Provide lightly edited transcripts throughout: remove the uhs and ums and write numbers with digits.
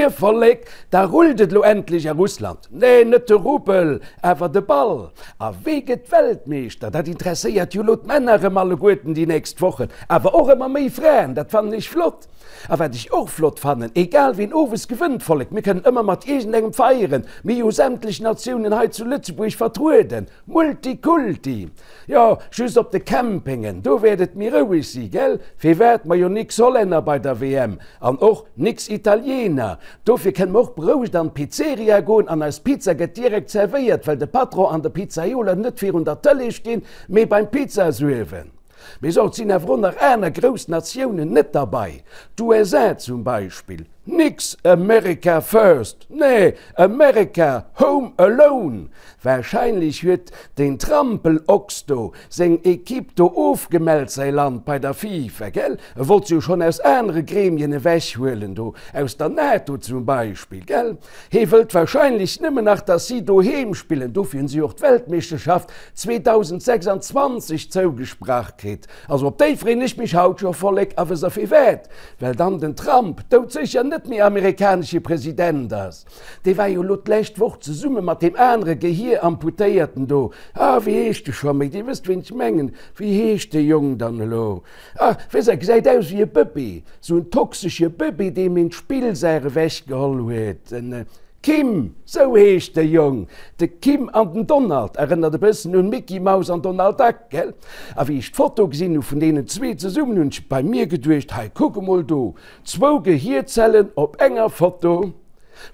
Moie Vollek, da rullt et elo endlech a Russland. Nee, net de Rubel, awer de Ball. A wee gëtt Weltmeeschter? Dat interesséiert jo elo d'Männer erëm alleguerten déi nächst Wochen, awer och ëmmer méi Fraen, dat fannen ech flott. A wat ech och flott fannen, egal ween owes gewënnt, Vollek, mir kënnen ëmmer mat iergendengem feieren, mir hu jo sämtlech Natiounen hei zu Lëtzebuerg vertrueden. Multikulti! Jo, just op de Campingen, do wäert et méi roueg si, gell? Firwat? Majo nix Hollänner bei der WM an och nix Italiener. Dofir kënne mer och berouegt an d'Pizzeria goen an eis Pizza gëtt direkt zerwéiert, well de Patron an de Pizzaiola net virun der Tëlee stinn, mee beim Pizzasuerwen. Mee so, et sinn awer och nach aner grouss Natiounen net derbei, d'USA zum Beispill. Nix America first, nee, America home alone! Wahrscheinlech huet deen Trampelochs do seng Equipe do ofgemellt, säi Land bei der FIFA, gell? E wollt se jo schonn aus anere Gremien ewechhuelen do, aus der NATO zum Beispill, gell? Hee wëllt wahrscheinlech nëmmen nach, dass si doheem spillen, dofir hunn si och d'Weltmeeschterschaft 2026 zougesprach kritt. Also op déi freen ech mech haut scho, Vollek, a wësst der firwat? Well dann den Trump doudsécher net méi amerikanesche President ass. Dee war jo elo d'lescht Woch zesumme mat deem anere Gehier-Amputéierten do, ah wéi heescht e scho méi, Dir wësst ween ech mengen, wéi heescht dee Jong dann elo, ah wësst der, gesäit aus wéi e Bëbee, sou en toxesche Bëbee, deem een d'Spillsaach ewechgeholl huet, en. Kim, sou heescht de Jong. De Kim an den Donald, erënnert e bëssen un Micky Maus an Donald Duck, gell? A wéi ech d'Foto gesinn hu vun deenen zwee zesummen, hunn ech bei mir geduecht, hei kuck emol do, zwou Gehierzellen op enger Foto.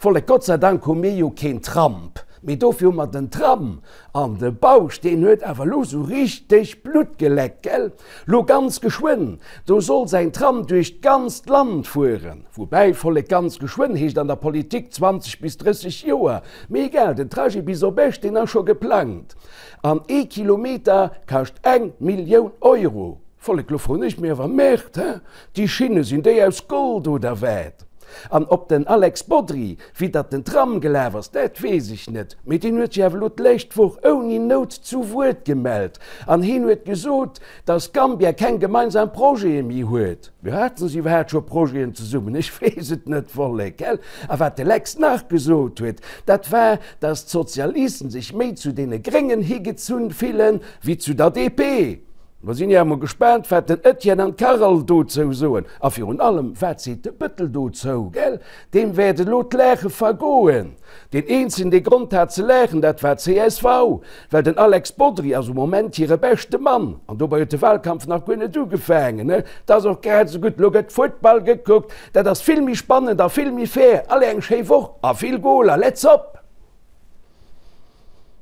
Vollek, Gott sei Dank hu mir jo keen Tramp, mee dofir hu mer den Tram. An de Bausch, deen huet awer lo sou richteg Blutt geleckt, gell? Lo ganz geschwënn, do soll säin Tram duerch d'ganzt Land fueren. Woubäi, Vollek, ganz geschwënn heescht an der Politik 20 bis 30 Joer. Mee egal, den Trajet bis op Esch, deen ass scho geplangt. An ee Kilometer kascht eng Millioun Euro. Vollek, lo froen ech mech awer, Merde, he? Déi Schinne, sinn déi aus Gold oder wat? An ob den Alex Bodry widdert den Tram gelaf ass, dat weess ech net, mee deen huet sech awer elo d'lescht Woch ouni Nout zu Wuert gemellt an heen huet gesot, datt Gambia keng gemeinsam Projete méi huet. Jo, haten se iwwerhaapt scho Projeten zesummen? Ech weess et net, Vollek, gell? A wat de Lex nach gesot huet, dat war, datt d'Sozialisten sech méi zu deene Gréngen higezunn fillen, wéi zu der DP. Mer sinn jo emol gespaant, wat den Etienne an d'Carole dozou soen. A virun allem, wat seet de Bëttel dozou, gell? Deem wäert elo d'Laache vergoen. Deen eenzegen, dee Grond hat ze laachen, dat war csv, well den Alex Bodry ass um Moment hire beschte Mann. An dobei huet de Wahlkampf nach guer net ugefaangen, ne? 't ass och grad esou gutt, elo gëtt Futtball gekuckt, dat ass vill méi spannend a vill méi fair. Allez, eng schéi Woch a vill Goler, let's op!